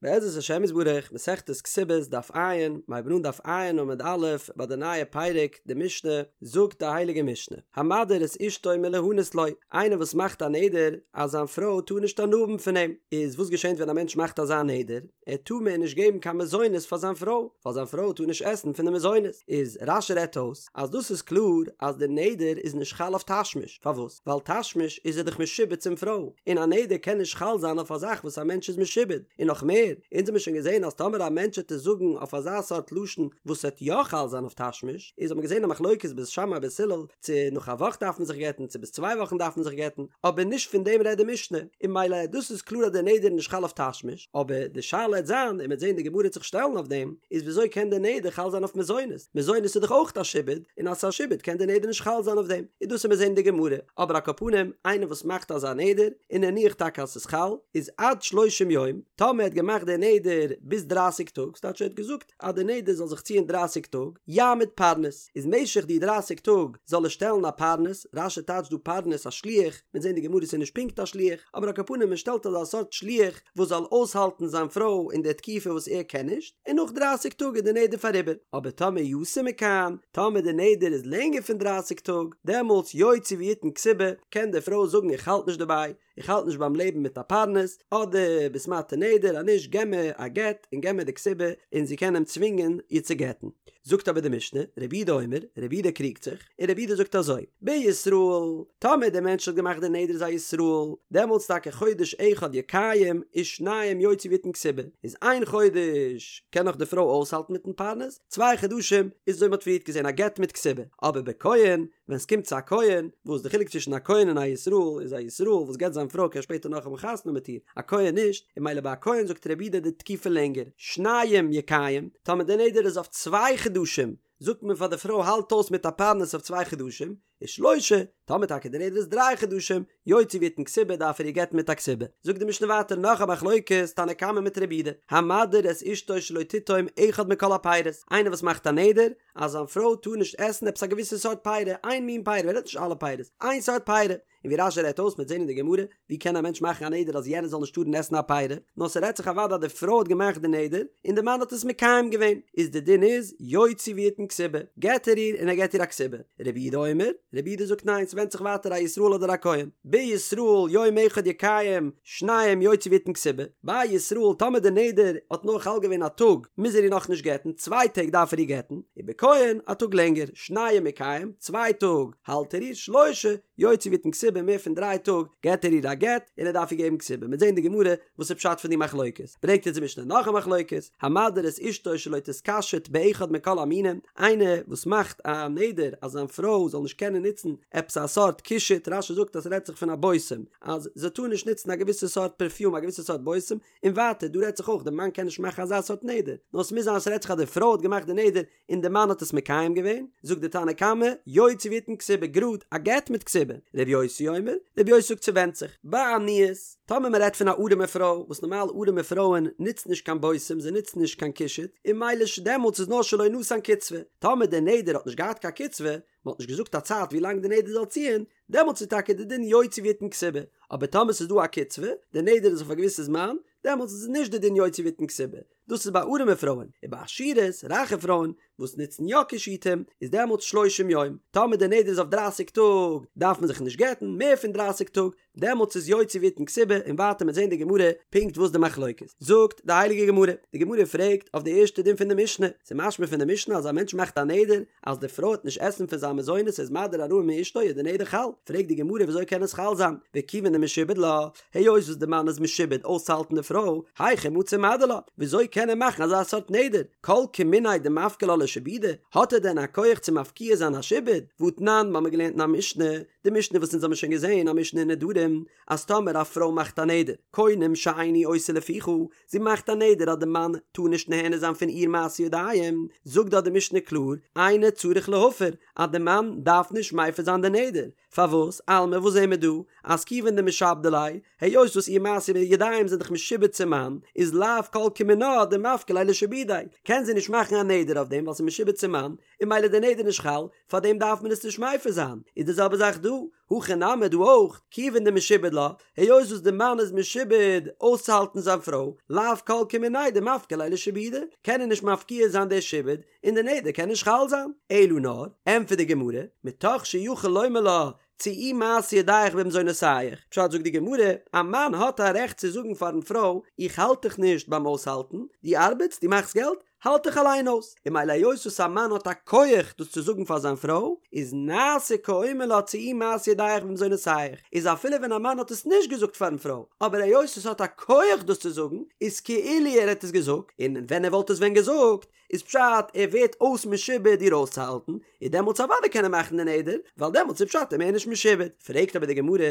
בעזרת השם יתברך, מסכת כתובות, דף ע', מ'הייבן אן דף ע' עמוד א', ביי די נייע פרק, די משנה, זאגט די הייליגע משנה, המדיר את אשתו מלהנות לו, איינער וואס מאכט א נדר אז זיין פרוי טאר נישט הנאה האבן פון אים, איז וואס געשענט ווען א מענטש מאכט אזא נדר? ער טאר מער נישט געבן קיין מזונות פאר זיין פרוי, ווייל זיין פרוי טאר נישט עסן פון די מזונות, איז רש"י רעדט אויס אז דאס איז קלאר אז די נדר איז נישט חל אויף תשמיש, פארוואס? ווייל תשמיש איז ער דאך משועבד צום פרוי, און א נדר קען נישט חל זיין אויף א זאך וואס א מענטש איז משועבד, און נאך מער, אונז האמיר שוין געזען אז טאמער א מענטש העט עס זאגן אויף אזא סארט לשון וואס העט יא חל זיין אויף תשמיש, איז האט מען געזען א מחלוקת בית שמאי בית הלל צו נאך א וואך דארף מען זיך גט'ן צו ביז צוויי וואכן דארף מען זיך גט'ן, אבער נישט פון דעם רעדט די משנה, און ממילא דאס איז קלאר אז די נדר איז נישט חל אויף תשמיש, אבער די שאלה העט זיין, און מ'עט זען די גמרא העט זיך שטעלן אויף דעם, איז וויאזוי קען די נדר חל זיין אויף מזונות? מזונות איז דאך אויך א שעבוד, און אז ס'איז א שעבוד קען די נדר נישט חל זיין אויף דעם, און דאס עמיר זען אין די גמרא, אבער על כל פנים, איינער וואס מאכט אזא נדר, און נניח טאקע אז ס'איז חל, איז עד שלושים יום, טאמער ער האט געמאכט די נדר ביז דרייסיג טאג, ס'טייטש ער האט געזאגט אז די נדר זאל זיך ציען דרייסיג טאג, יעמיד פרנס, איז משך די דרייסיג טאג זאל ער שטעלן א פרנס, רש"י טייטשט דא פרנס א שליח, מ'עט זען די גמרא ס'איז נישט פונקט א שליח, אבער על כל פנים מען שטעלט אזא סארט שליח וואס זאל אויסהאלטן זיין פרוי אין די תקופה וואס ער קען נישט, און נאך דרייסיג טאג איז די נדר פאריבער, אבער טאמער יתר מכאן, טאמער די נדר איז לענגער פון דרייסיג טאג, דעמאלטס יוציא ויתן כתובה, קען די פרוי זאגן איך האלט נישט דערביי, איך האלט נישט ביים לעבן מיט א פרנס, אדער ביסט מתיר נדר אז נישט געב מיר א גט און געב מיר די כתובה, און זי קען אים צווינגען איר צו גט'ן. זאגט אבער די משנה, רבי יהודה אומר, רבי יהודה קריגט זיך, און רבי יהודה זאגט אזוי, בישראל, טאמער דער מענטש האט געמאכט די נדר איז א ישראל, דעמאלטס טאקע חודש אחד יקיים ושניים יוציא ויתן כתובה, איז איין חודש קען נאך די פרוי אויסהאלטן מיטן פרנס, צוויי חדשים איז אזוי מ'האט פריערט געזען א גט מיט כתובה, אבער בכהן, ווען ס'קומט צו א כהן, וואס די חילוק צווישן א כהן און א ישראל איז א ישראל וואס גט זיין פרוי קען שפעטער נאך האבן חתונה מיט איר, א כהן נישט, און ממילא ביי א כהן זאגט רבי יהודה די תקופה לענגער, שניים יקיים, טאמער די נדר איז אויף צוויי חדשים, זאגט מען פאר די פרוי האלט אויס מיט א פרנס אויף צוויי חדשים, ושלושה, טאמער טאקע די נדר איז דריי חדשים, יוציא ויתן כתובה דארף ער איר גט'ן מיט א כתובה. זאגט די משנה ווייטער נאך א מחלוקת תנא קמא מיט רבי יהודה, המדיר את אשתו שלא תטעום אחד מכל הפירות, איינער וואס מאכט א נדר אז זיין פרוי טאר נישט עסן עפעס א געוויסע סארט פירה, איין מין פירה, מען רעדט נישט אלע פירות, איין סארט פירה, און ווי רש"י רעדט אויס מ'עט זען אין די גמרא, ווי קען א מענטש מאכן א נדר אז יענער זאל נישט טארן עסן א פירה, נאר ס'רעדט זיך אוודאי אז די פרוי האט געמאכט די נדר, און די מאן האט עס מקיים געווען, איז די דין איז, יוציא ויתן כתובה, גט ער איר און ער געט איר א כתובה. רבי יהודה אומר, רבי יהודה זאגט ניין ס'ווענדט זיך ווייטער א ישראל אדער א כהן, בישראל יום אחד יקיים, שניים יוציא ויתן כתובה, ביי ישראל טאמער די נדר האט נאר חל געווען א טאג מוז ער איר נאכנישט גט'ן, צוויי טעג דארף ער איר גט'ן, ובכהן א טאג לענגער, שניים יקיים, צוויי טאג האלט ער איר, שלושה, יוציא ויתן כתובה מער פון דריי טאג געט ער איר א גט און ער דארף איר געבן כתובה מ'עט זען די גמרא וואס איז פשט פון די מחלוקת ברענגט אונז די משנה נאך א מחלוקת המדיר את אשתו שלא תתקשט באחד מכל המינים איינער וואס מאכט א נדר אז זיין פרוי זאל נישט קענען נוצן עפעס א סארט קישוט רש"י זאגט אז ס'רעדט זיך פון א בושם אז זי טאר נישט נוצן א געוויסע סארט פערפיום א געוויסע סארט בושם און ווייטער דא רעדט זיך אויך די מאן קען נישט מאכן אזא סארט נדר נאר ס'מוז זיין אז ס'רעדט זיך אז די פרוי האט געמאכט די נדר און די מאן האט עס מקיים געווען, זאגט די תנא קמא, יוציא ויתן כתובה גראד, א גט מיט כתובה, ר' יוסי אומר, ר' יוסי זאגט ס'ווענדט זיך, בעניות, טאמער מ'רעדט פון א ארעמע פרוי, וואס נארמאל ארעמע פרויען נוצן נישט קיין בושם, זיי נוצן נישט קיין קישוט, און ממילא דעמאלטס איז נאר שלא נתן קצבה, טאמער די נדר האט נישט געהאט קיין קצבה, מ'האט נישט געזאגט א צייט ווי לאנג די נדר זאל ציען, דעמאלטס איז טאקע די דין יוציא ויתן כתובה, אבער טאמער ס'איז דא א קצבה, די נדר איז אויף א געוויסע זמן, דעמאלטס איז נישט די דין יוציא ויתן כתובה, דאס איז ביי ארעמע פרויען, און ביי עשירות, רייכע פרויען, וואס נוצן יא קישוטים, איז דעמאלטס שלושים יום, טאמער די נדר איז אויף דרייסיג טאג, דארף מען זיך נישט גט'ן, מער פון דרייסיג טאג, דעמאלטס איז יוציא ויתן כתובה, און ווייטער מ'עט זען די גמרא פונקט וואס די מחלוקת. זאגט די הייליגע גמרא, די גמרא פרעגט אויף די ערשטע דין פון די משנה, ס'איז משמע פון די משנה אז א מענטש מאכט א נדר אז די פרוי וועט נישט עסן פון זיין מזונות איז מדיר הנאה מאשתו איז די נדר חל, פרעגט די גמרא וויאזוי קען עס חל זיין, וכיוון דמשועבד לה, היות וואס די מאן איז משועבד אויסצוהאלטן די פרוי, היכי מצי מדיר לה, וויאזוי קען ער מאכן אזא סארט נדר? כל כמיניה דמפקע לה לשעבודה, האט ער דען א כח צו מפקיע זיין א שעבוד? והתנן, מ'האמיר געלערנט אין א משנה, די משנה וואס אונז האמיר שוין געזען, א משנה אין נדרים, אז טאמער א פרוי מאכט א נדר, קונם שאיני עושה לפיך, זי מאכט א נדר אז די מאן טאר נישט נהנה זיין פון איר מעשי ידיים, זאגט דארט די משנה קלאר, אינו צריך להפר, אז די מאן דארף נישט מפר זיין די נדר, פארוואס? אלמא וואס זעהן מיר דא? אז כיוון דמשעבדא ליה, היות וואס איר מעשי ידיים זענען דאך משועבד צום מאן, איז לאו כל כמינה דמפקע ליה לשעבודיה, קען זי נישט מאכן א נדר אויף דעם ווייל. ס'איז משועבד צום מאן, און ממילא די נדר נישט חל, פארדעם דארף מען עס נישט מפר זיין, איז די זעלבע זאך דא, הכא נמי דא אויך, כיוון דמשועבד לה, היות וואס די מאן איז משועבד אויסצוהאלטן זיין פרוי, לאו כל כמיניה דמפקיר ליה לשעבודא, קען ער נישט מפקיע זיין די שעבוד, און די נדר קען נישט חל זיין. אלא נאר, ענטפערט די גמרא, מתוך שיכול לומר לה, צאי מעשה ידיך במזונותיך, פשט זאגט די גמרא, א מאן האט א רעכט צו זאגן פארן פרוי, איך האלט דיך נישט ביים אויסהאלטן, דו ארבעטסט, דו מאכסט געלט, האלט דיך אליין אויס, און ממילא היות וואס א מאן האט א כח דאס צו זאגן פאר זיין פרוי, איז נעשה כאומר לה צאי מעשה ידיך במזונותיך, איז אפילו ווען א מאן האט עס נישט געזאגט פארן פרוי, אבער היות עס האט א כח דאס צו זאגן, איז כאילו ער האט עס געזאגט, און ווען ער וואלט עס ווען געזאגט, איז פשט ער ווערט אויס משועבד איר אויסצוהאלטן, איז דעמאלטס אוודאי קען ער מאכן די נדר, ווייל דעמאלטס איז פשט ער מער נישט משועבד. פרעגט אבער די גמרא,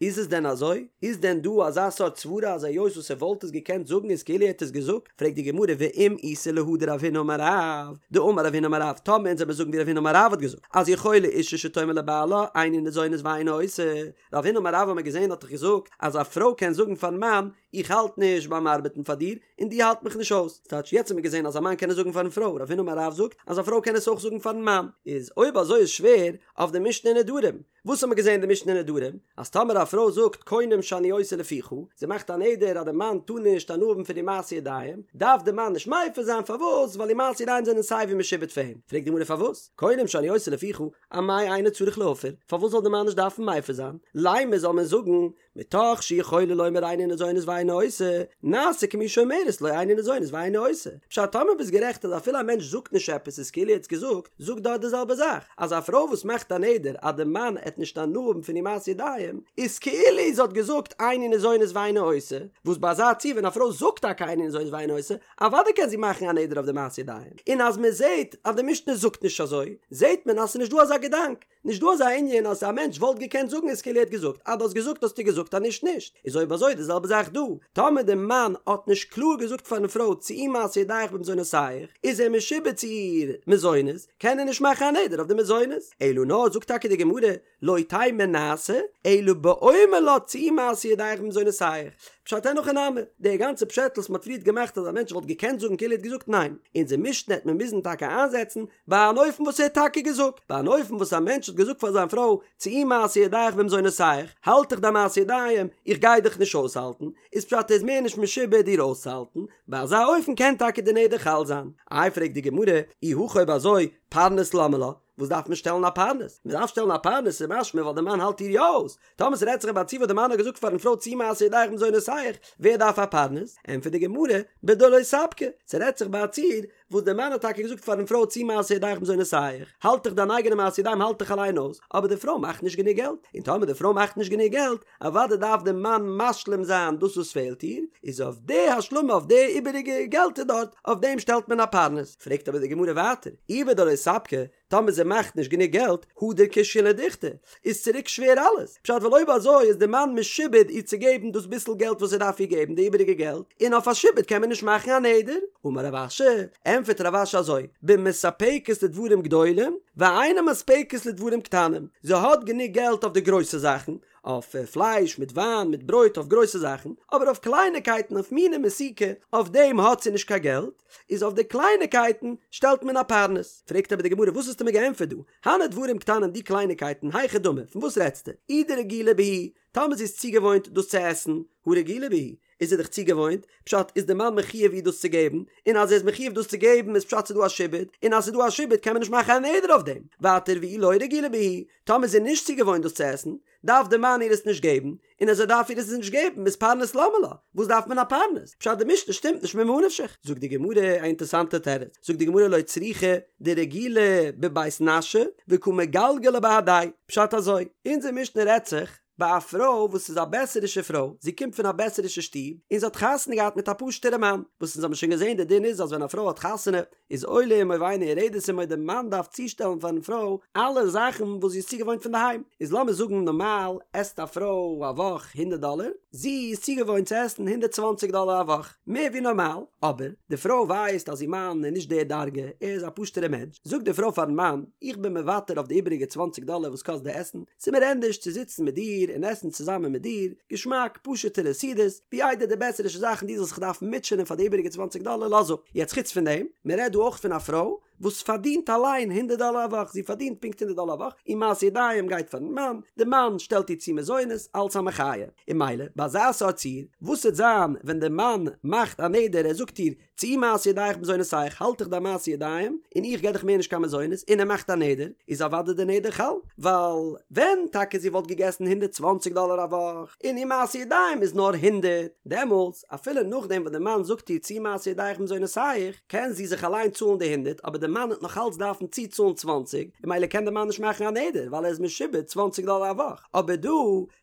איז עס דען אזוי? איז דען דא אזא סארט סברה אז היות וואס ער וואלט עס געקענט זאגן איז כאילו ער האט עס געזאגט? פרעגט די גמרא ואם איתא להא דרב הונא אמר רב, דאמר רב הונא אמר רב, טאמער אונז וועמיר זאגן ווי רב הונא אמר רב האט געזאגט אז יכולה אישה שתאמר לבעלה איני ניזונית ואיני עושה, רב הונא אמר רב האמיר געזען האט דאך געזאגט אז א פרוי קען זאגן פארן מאן איך האלט נישט ביים ארבעטן פאר דיר און דו האלט מיך נישט אויס, ס'טייטש יעצט האט מען געזען אז א מאן קען עס זאגן פארן פרוי, רב הונא אמר רב זאגט אז א פרוי קען עס אויך זאגן פארן מאן, איז אויב אזוי איז שווער אויף די משנה אין נדרים, וואס האט מען געזען אין די משנה אין נדרים? אז טאמער א פרוי זאגט קונם שאני עושה לפיך, זי מאכט א נדר אז די מאן טאר נישט הנאה האבן פון איר מעשי ידיים, דארף די מאן נישט מפר זיין, פארוואס? ווייל איר מעשי ידיים זענען סיי ווי משועבד פאר אים, פרעגט די גמרא פארוואס? קונם שאני עושה לפיך, אמאי אינו צריך להפר, פארוואס זאל די מאן נישט דארפן מפר זיין? לימא זאל מען זאגן, מתוך שיכולה לומר איני ניזונית ואיני עושה, נעשה כמי שאומרת לו איני ניזונית ואיני עושה. פשט טאמער ביסט גערעכט אז אפילו א מענטש זאגט נישט עפעס איז כאילו ער האט עס געזאגט, זאג דארט די זעלבע זאך, אז א פרוי וואס מאכט א נדר אז די מאן עט נישט הנאה האבן פון איר מעשי ידיים, איז כאילו זי האט געזאגט איני ניזונית ואיני עושה, וואס ביי אזא ציור ווען א פרוי זאגט טאקע איני ניזונית ואיני עושה, אוודאי קען זי מאכן א נדר אויף די מעשי ידיים. און אז מען זעט אז די משנה זאגט נישט אזוי, זעט מען אז ס'איז נישט דא אזא געדאנק. נישט דא אזא ענין אז א מענטש וואלט געקענט זאגן איז כאילו ער האט געזאגט, אז דו האסט געזאגט האסטו געזאגט אז נישט נישט, איז אויב אזוי די זעלבע זאך דא, טאמער די מאן האט נישט קלאר געזאגט פארן פרוי צאי מעשה ידיך במזונותיך, איז ער משועבד צו איר מזונות, קען ער נישט מאכן א נדר אויף די מזונות, אלא נאר זאגט טאקע די גמרא, לא תימא נעשה, אלא באומר לה צאי מעשה ידיך במזונותיך, פשט אין הכי נמי, די גאנצע פשעטל וואס מען האט פריערט געמאכט אז א מענטש וואלט געקענט זאגן כאילו ער האט געזאגט ניין, אונזער משנה העט מען מוזן טאקע איינזעצן ביי אן אופן וואס ער האט טאקע געזאגט, ביי אן אופן וואס א מענטש האט געזאגט פאר זיין פרוי, צאי מעשה ידיך במזונותיך, האלט דיך דיין מעשה ידיים, איך גיי דיך נישט אויסהאלטן, איז פשט ער איז מער נישט משועבד איר אויסצוהאלטן, ביי אזא אופן קען טאקע די נדר חל זיין. איי פרעגט די גמרא, אי הכי אויב אזוי, פרנס למה לה, וואס דארף מען שטעלן א פרנס? מען דארף שטעלן א פרנס איז משמע ווייל די מאן האלט איר יא אויס, טאמער ס'רעדט זיך ביי א ציור וואס די מאן האט געזאגט פארן פרוי צאי מעשה ידיך במזונותיך, ווער דארף א פרנס? ענטפערט די גמרא, בדלא ספקה, ס'רעדט זיך ביי א ציור וואס דער מאן האט טאקע געזאגט פארן פרוי צאי מעשה ידיך במזונותיך, האלט דיך דיין אייגענע מעשה ידיים האלט דיך אליין אויס, אבער די פרוי מאכט נישט גענוג געלט, און טאמער די פרוי מאכט נישט גענוג געלט, אוודאי דארף דער מאן משלים זיין דאס וואס פעלט איר, איז אויף די השלמה אויף די איבעריגע געלטער דארט, אויף דעם שטעלט מען א פרנס. פרעגט אבער די גמרא ווייטער, אי בדלא ספקה, טאמער זי מאכט נישט גענוג געלט, הדר קושיא לדוכתא, איז צוריק שווער אלעס, פשט ווייל אויב אזוי איז די מאן משועבד איר צו געבן דאס ביסל געלט וואס ער דארף איר געבן די איבעריגע געלט, און אויף א שעבוד קען מען נישט מאכן א נדר. אמר רב אשי, ענטפערט רב אשי אזוי, במספקת לדברים גדולים, ואינה מספקת לדברים קטנים, זי האט גענוג געלט אויף די גרויסע זאכן, אויף פלייש מיט וויין מיט ברויט אויף גרויסע זאכן, אבער אויף קלייניקייטן אויף מיני מתיקה אויף דעם האט זי נישט קיין געלט, איז אויף די קלייניקייטן שטעלט מען א פרנס. פרעגט אבער די גמרא וואס האסטו מיר געענטפערט דא? הני דברים קטנים די קלייניקייטן היכי דמי פון וואס רעדסטו? אי דרגילה בהו, טאמער זי איז צוגעוואוינט דאס צו עסן, הא רגילה בהו, איז זי דאך צוגעוואוינט, פשט איז די מאן מחויב איר דאס צו געבן, און אז ער איז מחויב דאס צו געבן איז פשט ס'איז דא א שעבוד, און אז ס'איז דא א שעבוד קען מען נישט מאכן א נדר אויף דעם. ווייטער ואי לא רגילה בהו, טאמער זי איז נישט צוגעוואוינט דאס צו עסן, דארף די מאן איר עס נישט געבן, און אז ער דארף איר עס נישט געבן איז פרנס למה לה, וואס דארף מען א פרנס? פשט די משנה שטימט נישט ממה נפשך. זאגט די גמרא א אינטערסאנטע תירוץ, זאגט די גמרא לא צריכא דרגילה בבית נשא וקא מגלגלא בהדיה, פשט אזוי, אונזער משנה רעדט זיך ביי א פרוי וואס איז א בעסערישע פרוי, זי קומט פון א בעסערישע שטוב, און זי האט חתונה געהאט מיט א פשוטערע מאן, וואס אונז האבן שוין געזען די דין איז אז ווען א פרוי האט חתונה איז עולה עמו ואינה יורדת עמו די מאן דארף צושטעלן פארן פרוי אלע זאכן וואס זי איז צוגעוואוינט פון די היים, איז לאמיר זאגן נארמאל עסט א פרוי א וואך הונדערט דאלער, זי איז צוגעוואוינט צו עסן הונדערט צוואנציג דאלער א וואך, מער ווי נארמאל, אבער די פרוי ווייסט אז איר מאן איז נישט די דרגה, ער איז א פשוטערע מענטש, זאגט די פרוי פארן מאן, איך בין מוותר אויף די איבעריגע צוואנציג דאלער וואס קאסט די עסן, ס'איז מיר ענדערש צו זיצן מיט דיר און עסן צוזאמען מיט דיר, געשמאק, פשוט'ערע סעודות, ווי איידער די בעסערישע זאכן דו זאלסט זיך דארפן מוטשענען פאר די איבעריגע צוואנציג דאלער, לאז אפ. יעצט חוץ פון דעם, מען רעדט דא אויך פון א פרוי. וואס פארדינט אליין הונדערט דאלער א וואך, זי פארדינט פונקט הונדערט דאלער א וואך, איר מעשה ידיים גייט פארן מאן, די מאן שטעלט איר צו מזונות אלץ א מחיה, און ממילא ביי אזא סארט ציור, וואס וועט זיין ווען די מאן מאכט א נדר ער זאגט איר צאי מעשה ידיך במזונותיך, האלט דיך דיין מעשה ידיים, און איך געב דיך מער נישט קיין מזונות, און ער מאכט א נדר, איז אוודאי די נדר חל, ווייל ווען טאקע זי וואלט געגעסן הונדערט צוואנציג דאלער א וואך, און איר מעשה ידיים איז נאר הונדערט, דעמאלטס, אפילו נאכדעם וואס די מאן זאגט איר צאי מעשה ידיך במזונותיך, קען זי זיך אליין צאלן די הונדערט, אבער די מאן וועט נאך אלץ דארפן צוצאלן צוואנציג, און ממילא קען די מאן נישט מאכן א נדר, ווייל ער איז משועבד צוואנציג דאלער א וואך, אבער דא,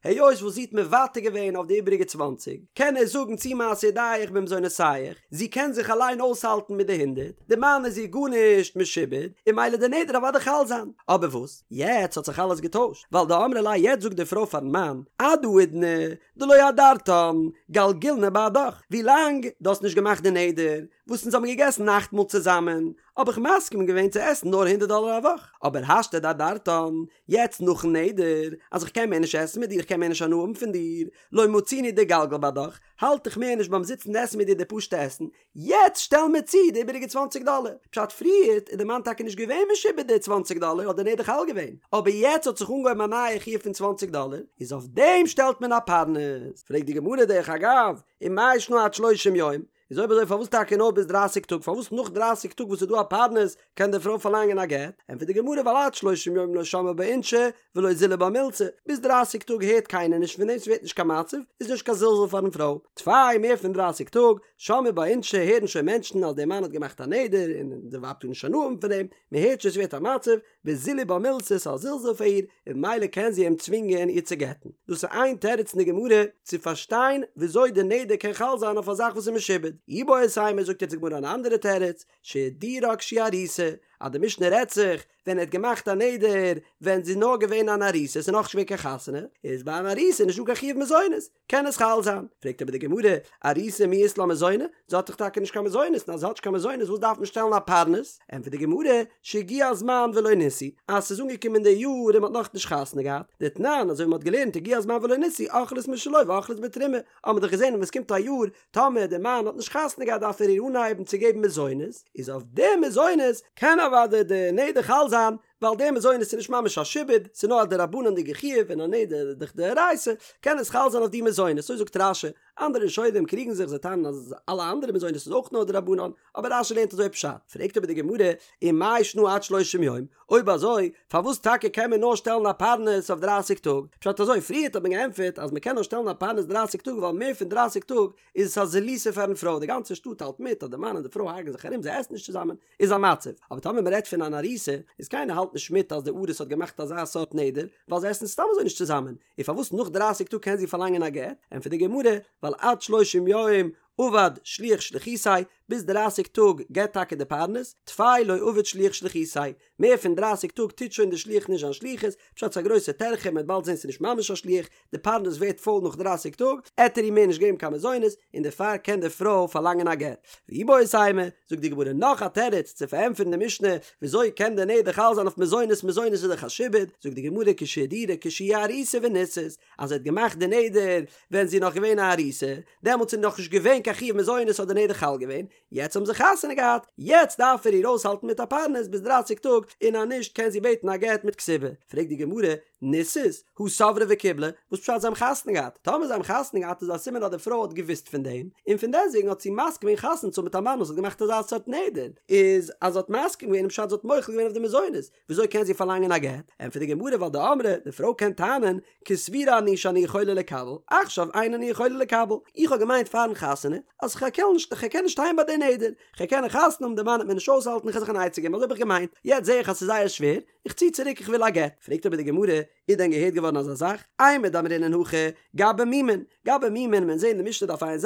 היות וואס זי האט מוותר געווען אויף די איבעריגע צוואנציג, קען ער זאגן צאי מעשה ידיך במזונותיך, זי קען זיך אליין אויסהאלטן מיט די הונדערט, די מאן איז איר גארנישט משועבד, און ממילא די נדר אוודאי חל זיין. אבער וואס? יעצט האט זיך אלעס געטוישט, ווייל דאמרה ליה יעצט זאגט די פרוי פארן מאן, עד האידנא דלא אדרתן, גלגילנא בהדך, ווילאנג דו האסט נישט געמאכט די נדר, וואס אונז האבן געגעסן נאכטמאל צוזאמען, האב איך מסכים געווען צו עסן נאר הונדערט דאלער א וואך, אבער השתא דאדרתן, יעצט נאכן נדר, אז איך קען מער נישט עסן מיט דיר, איך קען מער נישט הנאה האבן פון דיר, לא מצינא דאגלגל בהדך, האלט איך מער נישט ביים זיצן עסן מיט דיר די פשוטע עסן, יעצט שטעל מיר צו די איבעריגע צוואנציג דאלער. פשט פריערט איז די מאן טאקע נישט געווען משועבד די צוואנציג דאלער האט די נדר חל געווען, אבער יעצט האט זיך אנגעהויבן א נייע חיוב פון צוואנציג דאלער, איז אויף דעם שטעלט מען א פרנס. פרעגט די גמרא דרך אגב, ומאי שנא עד שלושים יום? איז אויב אזוי פארוואס טאקע נאר ביז דרייסיג טאג? פארוואס נאך דרייסיג טאג וואס איז דא א פרנס קען די פרוי פארלאנגען א גט? ענטפערט די גמרא ווייל עד שלושים יום לא שמעי בה אינשי ולא זילי בה מילתא, ביז דרייסיג טאג הערט קיינער נישט פון דעם ס'ווערט נישט קיין מצב, איז נישט קיין זלזול פארן פרוי. טפי מער פון דרייסיג טאג, שמעי בה אינשי הערן שוין מענטשן אז דער מאן האט געמאכט א נדר און די ווייב טאר נישט הנאה האבן פון דעם, מ'הערט שוין ס'ווערט א מצב, וזילי בה מילתא ס'איז א זלזול פאר איר, און ממילא קען זי אים צווינגען איר צו גט'ן. דאס איז איין תירוץ אין די גמרא צו פארשטיין וויאזוי די נדר קען חל זיין אויף א זאך וואס איז משועבד. איבעית אימא זאגט יעצט די גמרא אן אנדערע תירוץ, שהדירה כשהיא ארוסה, אז די משנה רעדט זיך ווען ער האט געמאכט א נדר ווען זי איז נאר געווען אן ארוסה, ס'איז נאכנישט געווען קיין חתונה, איז ביי אן ארוסה נישטא קיין חיוב מזונות, קען עס חל זיין. פרעגט אבער די גמרא, ארוסה מי אית לה מזוני? זי האט דאך טאקע נישט קיין מזונות, און אז זי האט נישט קיין מזונות וואס דארף מען שטעלן א פרנס? ענטפערט די גמרא, שהגיע הזמן ולא נישאו, אז ס'איז אנגעקומען די יאר און מ'האט נאכנישט חתונה געהאט, דתנן, אזוי ווי מ'האט געלערנט הגיע הזמן ולא נישאו, אוכלות משלו ואוכלות בתרומה, האט מען דאך געזען ווען ס'קומט א יאר, טאמער די מאן האט נישט חתונה געהאט דארף ער איר אנהייבן צו געבן מזונות, איז אויף די מזונות קען אוודאי די נדר חל זיין, ווייל די מזונות איז נישט ממש א שעבוד, ס'איז נאר א דרבנן'דיגע חיוב און א נדר איז דאך דאורייתא, קען עס חל זיין אויף די מזונות, אזוי זאגט רש"י, אנדערע ראשונים קריגן זיך זיי טענה'ן אז אלע אנדערע מזונות איז אויך נאר דרבנן, אבער רש"י לערנט אזוי פשט, פרעגט אבער די גמרא, ומאי שנא עד שלושים יום, אויב אזוי פארוואס טאקע קען מען נאר שטעלן א פרנס אויף דרייסיג טאג, פשט אזוי, פריערט האט מען געענטפערט אז מען קען נאר שטעלן א פרנס דרייסיג טאג ווייל מער פון דרייסיג טאג איז עס א זילותא פארן פרוי, די גאנצע שטאט האלט מיט אז די מאן און די פרוי הרג'ן זיך ארום זיי עסן נישט צוזאמען, איז א מצב, אבער טאמער מען רעדט פון אן ארוסה, איז קיינער האלט נישט מיט אז די ארוס האט געמאכט אזא סארט נדר, ווייל זיי עסן סתם אזוי נישט צוזאמען, און פארוואס נאך דרייסיג טאג קען זי פארלאנגען א גט? ענטפערט די גמרא, ווייל עד שלושים יום עבד שליח שליחותיה, ביז דרייסיג טאג געבט טאקע די פרנס, טפי לא עביד שליח שליחותיה, מער פון דרייסיג טאג טוט שוין די שליח נישט זיין שליחות, פשט ס'איז א גרויסע טרחה, מען וועט באלד זען ס'איז נישט ממש א שליח, די פרנס ווערט פויל נאך דרייסיג טאג, עט ער איר מער נישט געבן קיין מזונות, און דערפאר קען די פרוי פארלאנגען א גט. ואיבעית אימא, זאגט די גמרא נאך א תירוץ צו פארענטפערן די משנה, וויאזוי קען די נדר חל זיין אויף מזונות, מזונות איז דאך א שעבוד, זאגט די גמרא כשהדירה כשהיא ארוסה ונישאת, אז ער האט געמאכט די נדר ווען זי איז נאך געווען א ארוסה, דעמאלטס איז נאכנישט געווען קיין חיוב מזונות האט די נדר חל געווען, יעצט האבן זיי חתונה געהאט, יעצט דארף ער איר אויסהאלטן מיט א פרנס ביז דרייסיג טאג, און אז נישט קען זי בעטן א גט מיט כתובה. פרעגט די גמרא, נישאת, הא סברה וקיבלה, וואס פשט זיי האבן חתונה געהאט? טאמער זיי האבן חתונה געהאט איז א סימן אז די פרוי האט געוואוסט פון דעם, און פון דעסטוועגן האט זי מסכים געווען חתונה צו האבן מיט א מאן וואס האט געמאכט אזא סארט נדר, איז אז זי האט מסכים געווען איז פשט זי האט מוחל געווען אויף די מזונות, וויאזוי קען זי פארלאנגען א גט? ענטפערט די גמרא ווייל דאמרה, די פרוי קען טענה'ן, כסבורה אני שאני יכולה לקבל, עכשיו אין אני יכולה לקבל, איך האב געמיינט פארן חתונה אז כ'קען נישט, כ'קען נישט שטיין ביי די נדר, כ'קען חתונה האבן די מאן וועט מיר נישט אויסהאלטן איך וועל זיך אן עצה געבן, אזוי האב איך געמיינט, יעצט זע איך אז ס'איז זייער שווער, איך צי צוריק איך וויל א גט. פרעגט אבער די גמרא, איז דען געהערט געווארן אזא זאך? אימר דאמרינן הכי, גבי מומין, גבי מומין, מען זעהט אין די משנה דף ע"ז,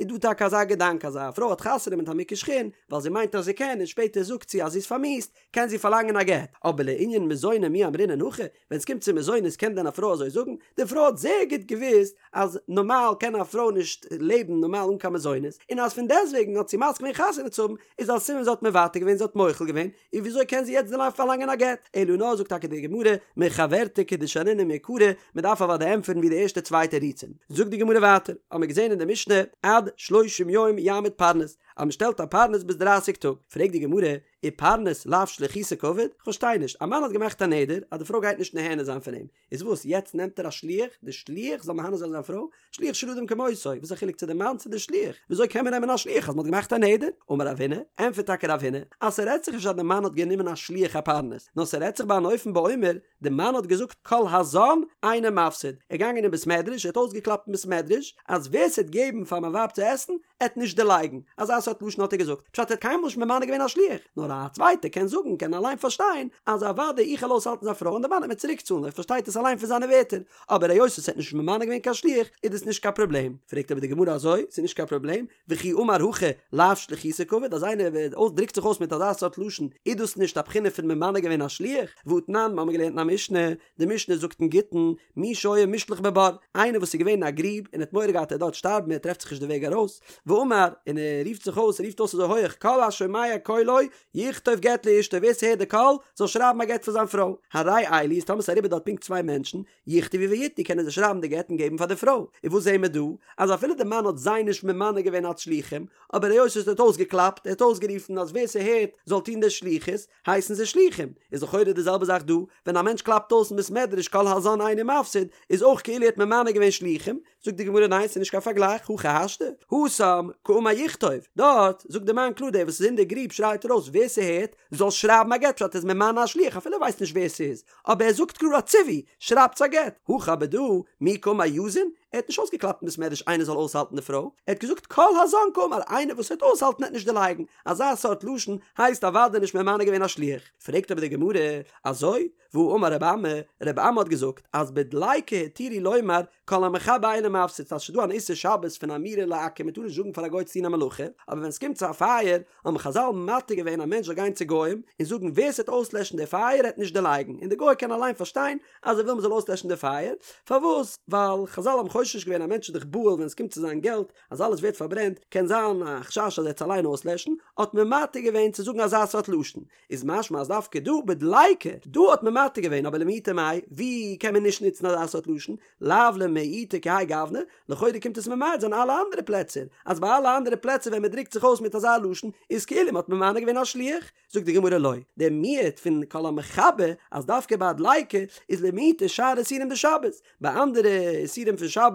איז דא טאקע אזא געדאנק אז א פרוי האט חתונה מיט א מוכה שחין, ווייל זי מיינט אז זי קען, און שפעטער זאגט זי אז זי איז פארמיאוסט, קען זי פארלאנגען א גט, אבער לענין מזוני מי אמרינן הכי, ווען ס'קומט צו מזונות קען דען א פרוי אזוי זאגן? די פרוי האט זייער גוט געוואוסט אז נארמאל קען א פרוי נישט לעבן נארמאל אן קיין מזונות, און אז פון דעסטוועגן האט זי מסכים געווען חתונה צו האבן, איז א סימן זי האט מוותר געווען, זי האט מוחל געווען, און וויאזוי קען זי יעצט דערנאך פארלאנגען א גט? אלא נאר זאגט טאקע די גמרא, מחוורתא כדשנינן מעיקרא, מען דארף אוודאי ענטפערן ווי די ערשטע צוויי תירוצים. זאגט די גמרא ווייטער, האמיר געזען אין די משנה, עד שלושים יום יעמיד פרנס, אז מ'שטעלט א פרנס ביז דרייסיג טאג. פרעגט די גמרא, ופרנס לאו שליחותא קעביד? כ'פארשטיי נישט, א מאן האט געמאכט א נדר אז די פרוי גייט נישט נהנה זיין פון אים, איז וואס, יעצט נעמט ער א שליח, די שליח זאל מהנה זיין זיין פרוי? שליח של אדם כמותו, וואס איז א חילוק צו די מאן צו די שליח? וויאזוי קען מען נעמען א שליח אז מ'האט געמאכט א נדר? אמר רב הונא, ענטפערט טאקע רב הונא, אז ס'רעדט זיך נישט אז די מאן האט גענומען א שליח א פרנס, נאר ס'רעדט זיך ביי אן אופן באומר, די מאן האט געזאגט כל הזן אינו מפסיד, ער איז געגאנגען אין בית מדרש, ער האט אויסגעקלאפט אין בית מדרש, אז ווער ס'עט געבן פאר מיין ווייב צו עסן, עט נישט דערלייגן, אזא סארט לשון האט ער געזאגט, פשט ער האט קיינמאל נישט ממנה געווען א שליח, נאר א צווייטער קען זאגן, קען אליין פארשטיין, אז אוודאי איך וועל אויסהאלטן זיין פרוי און די מאן עט מיר צוריק צאלן, ער פארשטייט עס אליין פון זיינע ווערטער, אבער היות ער האט נישט ממנה געווען קיין שליח, איז דאס נישט קיין פראבלעם. פרעגט אבער די גמרא אזוי, ס'איז נישט קיין פראבלעם, וכי אמר הכי לאו שליחותא קעביד, אז איינער דרוקט זיך אויס מיט אזא סארט לשון, איז דאס נישט א בחינה פון ממנה געווען א שליח? והתנן, מ'האמיר געלערנט אין א משנה, די משנה זאגט אין גיטין, מי שהיה מושלך בבור, איינער וואס איז געווען אין א גריב און האט מורא געהאט ער וועט דארט שטארבן ער טרעפט זיך נישט די וועג ארויס, ואמר, און ער רופט זיך אויס, ער רופט אויס אזוי הויעך, כל השומע קולו, יכתוב גט לאשתו, ווער ס'הערט די קול, זאל שרייבן א גט פאר זיין פרוי. הרי אלו, איז טאמער ס'איז אריבער דארט פונקט צוויי מענטשן, יכתבו ויתנו, קענען זיי שרייבן די גט און געבן פאר די פרוי. און וואס זעהן מיר דא? אז אפילו די מאן האט זיי נישט ממנה געווען אלס שלוחים, אבער היות ער האט אויסגעקלאפט, ער האט אויסגערופן אז ווער ס'הערט זאל טון די שליחות, הייסן זיי שלוחים. איז לכאורה די זעלבע זאך דא, ווען א מענטש קלאפט אויס אין בית מדרש כל הזן אינו מפסיד, איז אויך כאילו ער האט ממנה געווען שלוחים, זאגט די גמרא ניין ס'איז נישט קיין פארגלייך, הכי השתא, התם קאמר יכתוב, דארט זאגט די מאן קלאר דער וואס איז אין די גריב שרייט ארויס ווער ס'הערט זאל שרייבן א גט פשט ער איז ממנה א שליח אפילו ער ווייסט נישט ווער ס'איז, אבער ער זאגט קלאר א ציווי, שרייבטס א גט, הכא אבער דא, מי קאמר יזין, ער האט נישט אויסגעקלאפט אין בית מדרש איינער זאל אויסהאלטן די פרוי, ער האט געזאגט כל הזן קאמר איינער וואס וועט אויסהאלטן וועט נישט דערלייגן, אזא סארט לשון הייסט אוודאי נישט ממנה געווען א שליח, פרעגט אבער די גמרא, אזוי? והאמר רבי אמי, רבי אמי האט געזאגט אז בדליקה התירו לומר כל המכבה אינו מפסיד, אז ס'איז דא אן איסור שבת פון אמירה לעכו"ם מ'טאר נישט זאגן פאר א גוי צו טון א מלאכה, אבער ווען ס'קומט צו א פייער האבן חז"ל מתיר געווען א מענטש זאל גיין צו גוים און זאגן ווער ס'וועט אויסלעשן די פייער העט נישט דערלייגן, און די גוי קען אליין פארשטיין אז ער וויל מ'זאל אויסלעשן די פייער, פארוואס? ווייל חז"ל האבן חושש געווען א מענטש איז דאך בהול ווען ס'קומט צו זיין געלט אז אלעס ווערט פארברענט, קען זיין א חשש אז ער וועט עס אליין אויסלעשן, האט מען מתיר געווען צו זאגן אזא סארט לשון, איז משמע אז דווקא דא בדליקה, דא האט מען מתיר געווען, אבער למעוטי מאי, ווי קען מען נישט נוצן אזא סארט לשון, לאו למעוטי כהאי גוונא, לכאורה קומט עס ממעט זיין אלע אנדערע פלעצער, אז ביי אלע אנדערע פלעצער ווען מען דרוקט זיך אויס מיט אזא לשון, איז כאילו מען האט ממנה געווען א שליח, זאגט די גמרא לא, דער מיעוט פון כל המכבה אז דווקא ביי א דליקה איז למעוטי שאר איסורים דשבת, ביי אנדערע איסורים פון שבת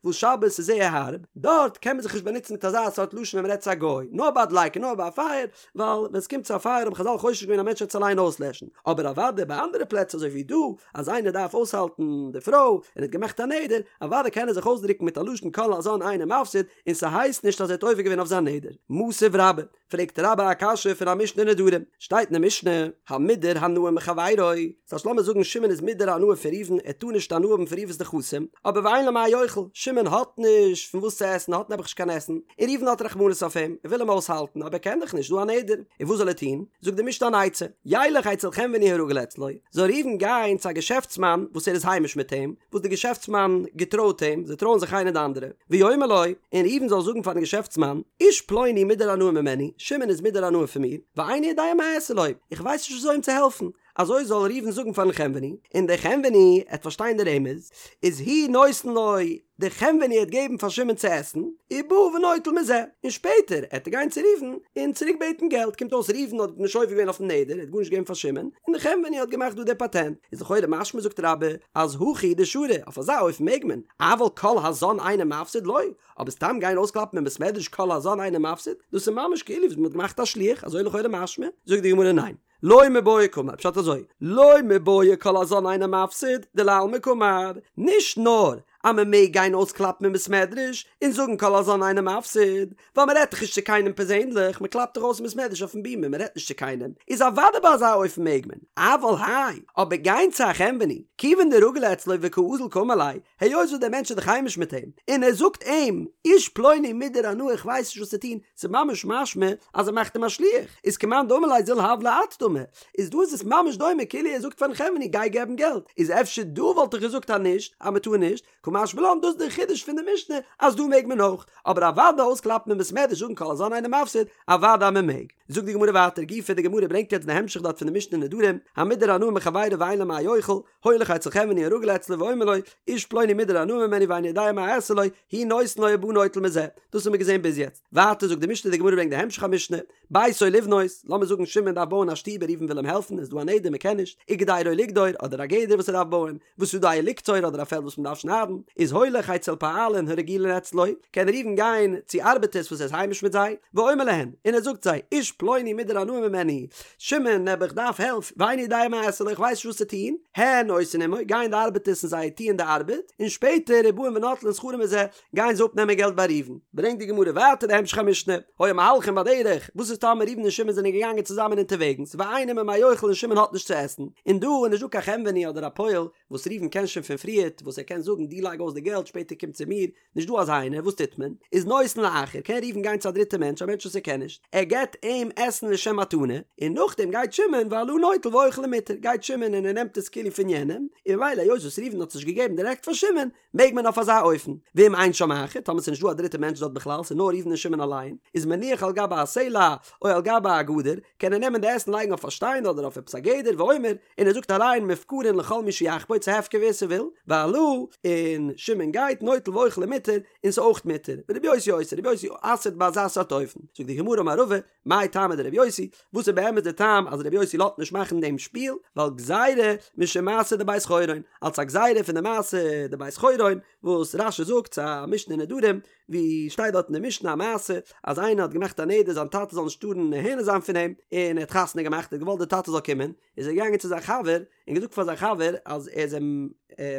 וואס שבת איז זייער הארב, דארט קען מען זיך נישט באנוצן מיט אזא סארט לשון ווען מען רעדט צו א גוי, נאר ביי א דליקה נאר ביי א פייער, ווייל ווען עס קומט צו א פייער האבן חז"ל חושש געווען א מענטש וועט עס אליין אויסלעשן, אבער אוודאי ביי אנדערע פלעצער אזוי ווי דא, אז איינער דארף אויסהאלטן די פרוי און האט געמאכט א נדר, אוודאי קען ער זיך אויסדרוקן מיט א לשון כל הזן אינו מפסיד, און ס'הייסט נישט אז ער האט עובר געווען אויף זיין נדר. מתיב רבה. פרעגט רבה א קשיא פון א משנה אין נדרים, שטייט אין די משנה, המודר הנאה מחבירו, ס'הייסט לאמיר זאגן שמעון איז מודר הנאה פון ראובן, ער טאר נישט הנאה האבן פון ראובן'ס נכסים, אבער ואין לו מה יאכל, שמעון האט נישט פון וואס צו עסן, האט נעבעך נישט קיין עסן, און ראובן האט רחמנות אויף אים, ער וויל אים אויסהאלטן, אבער ער קען דאך נישט, דא א נדר, און וואס זאל ער טון? זאגט די משנה אן עצה, ילך אצל חנווני הרגיל אצלו, זאל ראובן גיין צו א געשעפטסמאן וואס ער איז היימיש מיט אים, וואס די געשעפטסמאן געטרויט אים, זיי טרויען זיך איינער די אנדערע, ויאמר לו, און ראובן זאל זאגן פארן געשעפטסמאן, איש פלוני מודר הנאה ממני, שמעון איז מודר הנאה פון מיר, ואיני יודע מה אעשה לו, איך ווייס נישט וויאזוי אים צו העלפן, אזוי זאל ראובן זאגן פארן חנווני, און דער חנווני עט פארשטיין די רמז, איז הוא נותן לו, דער חנווני עט געבן פאר שמעון צו עסן, ובא ונוטל מזה, און שפעטער עט ער גיין צו ראובן און צוריק בעטן געלט, קומט אויס ראובן האט נישט עובר געווען אויפן נדר, ער האט גארנישט געגעבן פאר שמעון, און דער חנווני האט געמאכט דא די פאטענט, איז לכאורה משמע זאגט רבה, אז הכי הוא דשרי, אויף אזא אופן מעג מען, אבל כל הזן אינו מפסיד לא, אבער סתם גיין אויסקלאפן אין בית מדרש כל הזן אינו מפסיד, דאס איז ממש כאילו וואס מען האט געמאכט א שליח, אזוי לכאורה משמע, זאגט די גמרא ניין. לא מיבעיא קאמר, פשט אזוי, לא מיבעיא כל הזן אינו מפסיד, דלעלמא קאמר, נישט נאר אז מען מעג גיין אויסקלאפן אין בית מדרש און זאגן כל הזן אינו מפסיד, ווייל מען רעדט דאך נישט צו קיינעם פערזענליך, מען קלאפט דאך אויס אין בית מדרש אויפן בימה, מען רעדט נישט צו קיינעם, איז אוודאי ביי אזא אופן מעג מען, אבל האי, אבער גיין צו א חנווני, כיוון דרגיל אצלו וקאזיל קאמר ליה, היות וואס דער מענטש איז דאך היימיש מיט אים, און ער זאגט אים, איש פלוני מודר הנאה איך ווייס נישט וואס צו טון, ס'איז ממש משמע אז ער מאכט אים א שליח, איז כמאן דאמר ליה זיל הב ליה את דמי, איז דא איז עס ממש דומה כאילו ער זאגט פארן חנווני גיי געבן געלט, איז אפשר דא וואלט איך געזאגט אז נישט, אז מ'טאר נישט, קא משמע לן דאס איז דער חידוש פון די משנה אז דא מעג מען אויך, אבער אוודאי אויסקלאפן אין בית מדרש זאגן כל הזן אינו מפסיד, אוודאי אז מ'מעג. זאגט די גמרא ווייטער גופא, די גמרא ברענגט יעצט די המשך דארט פון די משנה נדרים, המודר הנאה מחבירו ואין לו מה יאכל, הולך אצל חנווני הרגיל אצלו ואומר לו, איש פלוני מודר הנאה ממני ואיני יודע מה אעשה לו, הוא נותן לו ובא נוטל מזה. דאס האבן מיר געזען ביז יעצט. ווייטער זאגט די משנה, די גמרא ברענגט די המשך המשנה, ביתו לבנות, לאמיר זאגן שמעון דארף בויען א שטוב און ראובן וויל אים העלפן, איז דא א נדר מען קען נישט, וגדרו לגדור, אדער א גדר וואס ער דארף בויען, ושדהו לקצור אדער א פעלד וואס מען דארף שניידן, איז הולך אצל פועלין הרגילין אצלו, קען ראובן גיין צו ארבעטערס וואס ער איז היימיש מיט זיי, ואומר להן, און ער זאגט זיי, איש פלוני מודר הנאה ממני, שמעון נעבעך דארף הילף, ואיני יודע מה אעשה לו, איך ווייס נישט וואס צו טון, הן עושין עמו, גייען די ארבעטערס און זיי טוען די ארבעט, און שפעטער ובאין ונוטלין שכרן מזה, גייען זיי אפנעמען געלט ביי ראובן. ברענגט די גמרא ווייטער די המשך המשנה, היו מהלכין בדרך, וואס איז טאמער ראובן און שמעון זענען געגאנגען צוזאמען אונטערוועגנס, ואין עמו מה יאכל און שמעון האט נישט צו עסן, און דא איז נישט דא קיין חנווני אדער א פועל וואס ראובן קען שוין פון פריערט וואס ער קען זאגן דו לייג אויס די געלט שפעטער קום צו מיר, נישט דא אזא איינער, וואס טוט מען? איז נותן לאחר, קען ראובן גיין צו א דריטע מענטש, א מענטש וואס ער קען נישט, ער געבט אים עסן לשם מתנה, און נאכדעם גייט שמעון והלה נוטל ואוכל ומותר, גייט שמעון און ער נעמט עס כאילו פון יענעם, און ממילא היות וואס ראובן האט עס נישט געגעבן דירעקט פאר שמעון, מעג מען אויף אזא אופן, ואם אין שם אחר, טאמער ס'איז נישט דא א דריטע מענטש דארט בכלל, ס'איז נאר ראובן און שמעון אליין, איז מניח על גבי הסלע או על גבי הגדר, קען ער נעמען די עסן לייגן אויף א שטיין אדער אויף עפעס א גדר, ואומר, און ער זאגט הריהן מופקרין לכל מי שיחפוץ ס'הפקר ווער ס'וויל, והלה, און שמעון גייט, נוטל ואוכל ומותר, און ס'איז אויך מותר, ורבי יוסי אוסר, רבי יוסי אסר'ט ביי אזא סארט אופן, זאגט די גמרא אמר רבא, מאי טעמא דרבי יוסי, וואס איז באמת די טעם אז רבי יוסי לאזט נישט מאכן דעם שפיל, ווייל גזירה משום מעשה דבית חורון, אלס א גזירה פון די מעשה דבית חורון, וואס רש"י זאגט ס'איז א משנה אין נדרים, ווי שטייט דארט אין די משנה א מעשה אז איינער האט געמאכט א נדר זיין טאטע זאל נישט טארן נהנה זיין פון אים, און ער האט חתונה געמאכט, ער האט געוואלט די טאטע זאל קומען, איז ער געגאנגען צו זיין חבר און געזאגט פאר זיין חבר אז ער איז אים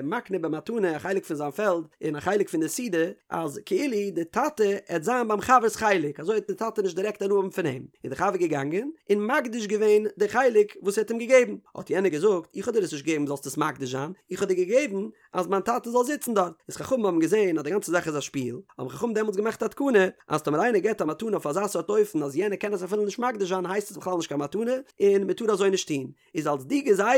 מקנה במתנה א חלק פון זיין פעלד און א חלק פון די סעודה, אז כאילו די טאטע עט זיין ביים חבר'ס חלק, אזוי עט די טאטע נישט דירעקט הנאה האבן פון אים, איז די חבר געגאנגען און מקדיש געווען די חלק וואס ער האט אים געגעבן, האט יענער געזאגט, איך האב דיר עס נישט געגעבן זאלסט עס מקדיש זיין, איך האב דיר געגעבן אז מיין טאטע זאל זיצן דארט, איז חכמים האבן געזען אז די גאנצע זאך איז א שפיל, האבן חכמים דעמאלטס געמאכט א תקנה, אז טאמער איינער געבט א מתנה אויף אזא סארט אופן אז יענער קען עס אפילו נישט מקדיש זיין הייסט עס בכלל נישט קיין מתנה, און מען טאר אזוי נישט טון. איז אלס די גזירה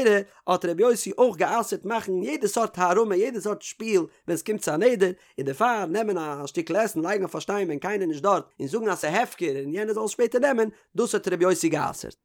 האט רבי יוסי אויך גע'אסר'ט מאכן יעדע סארט הערמה יעדע סארט שפיל ווען עס קומט צו א נדר, און דערפאר נעמען א שטיקל עסן לייגן אויף א שטיין ווען קיינער נישט דארט און זאגן אז ס'איז הפקר און יענער זאל עס שפעטער נעמען, דאס האט רבי יוסי גע'אסר'ט.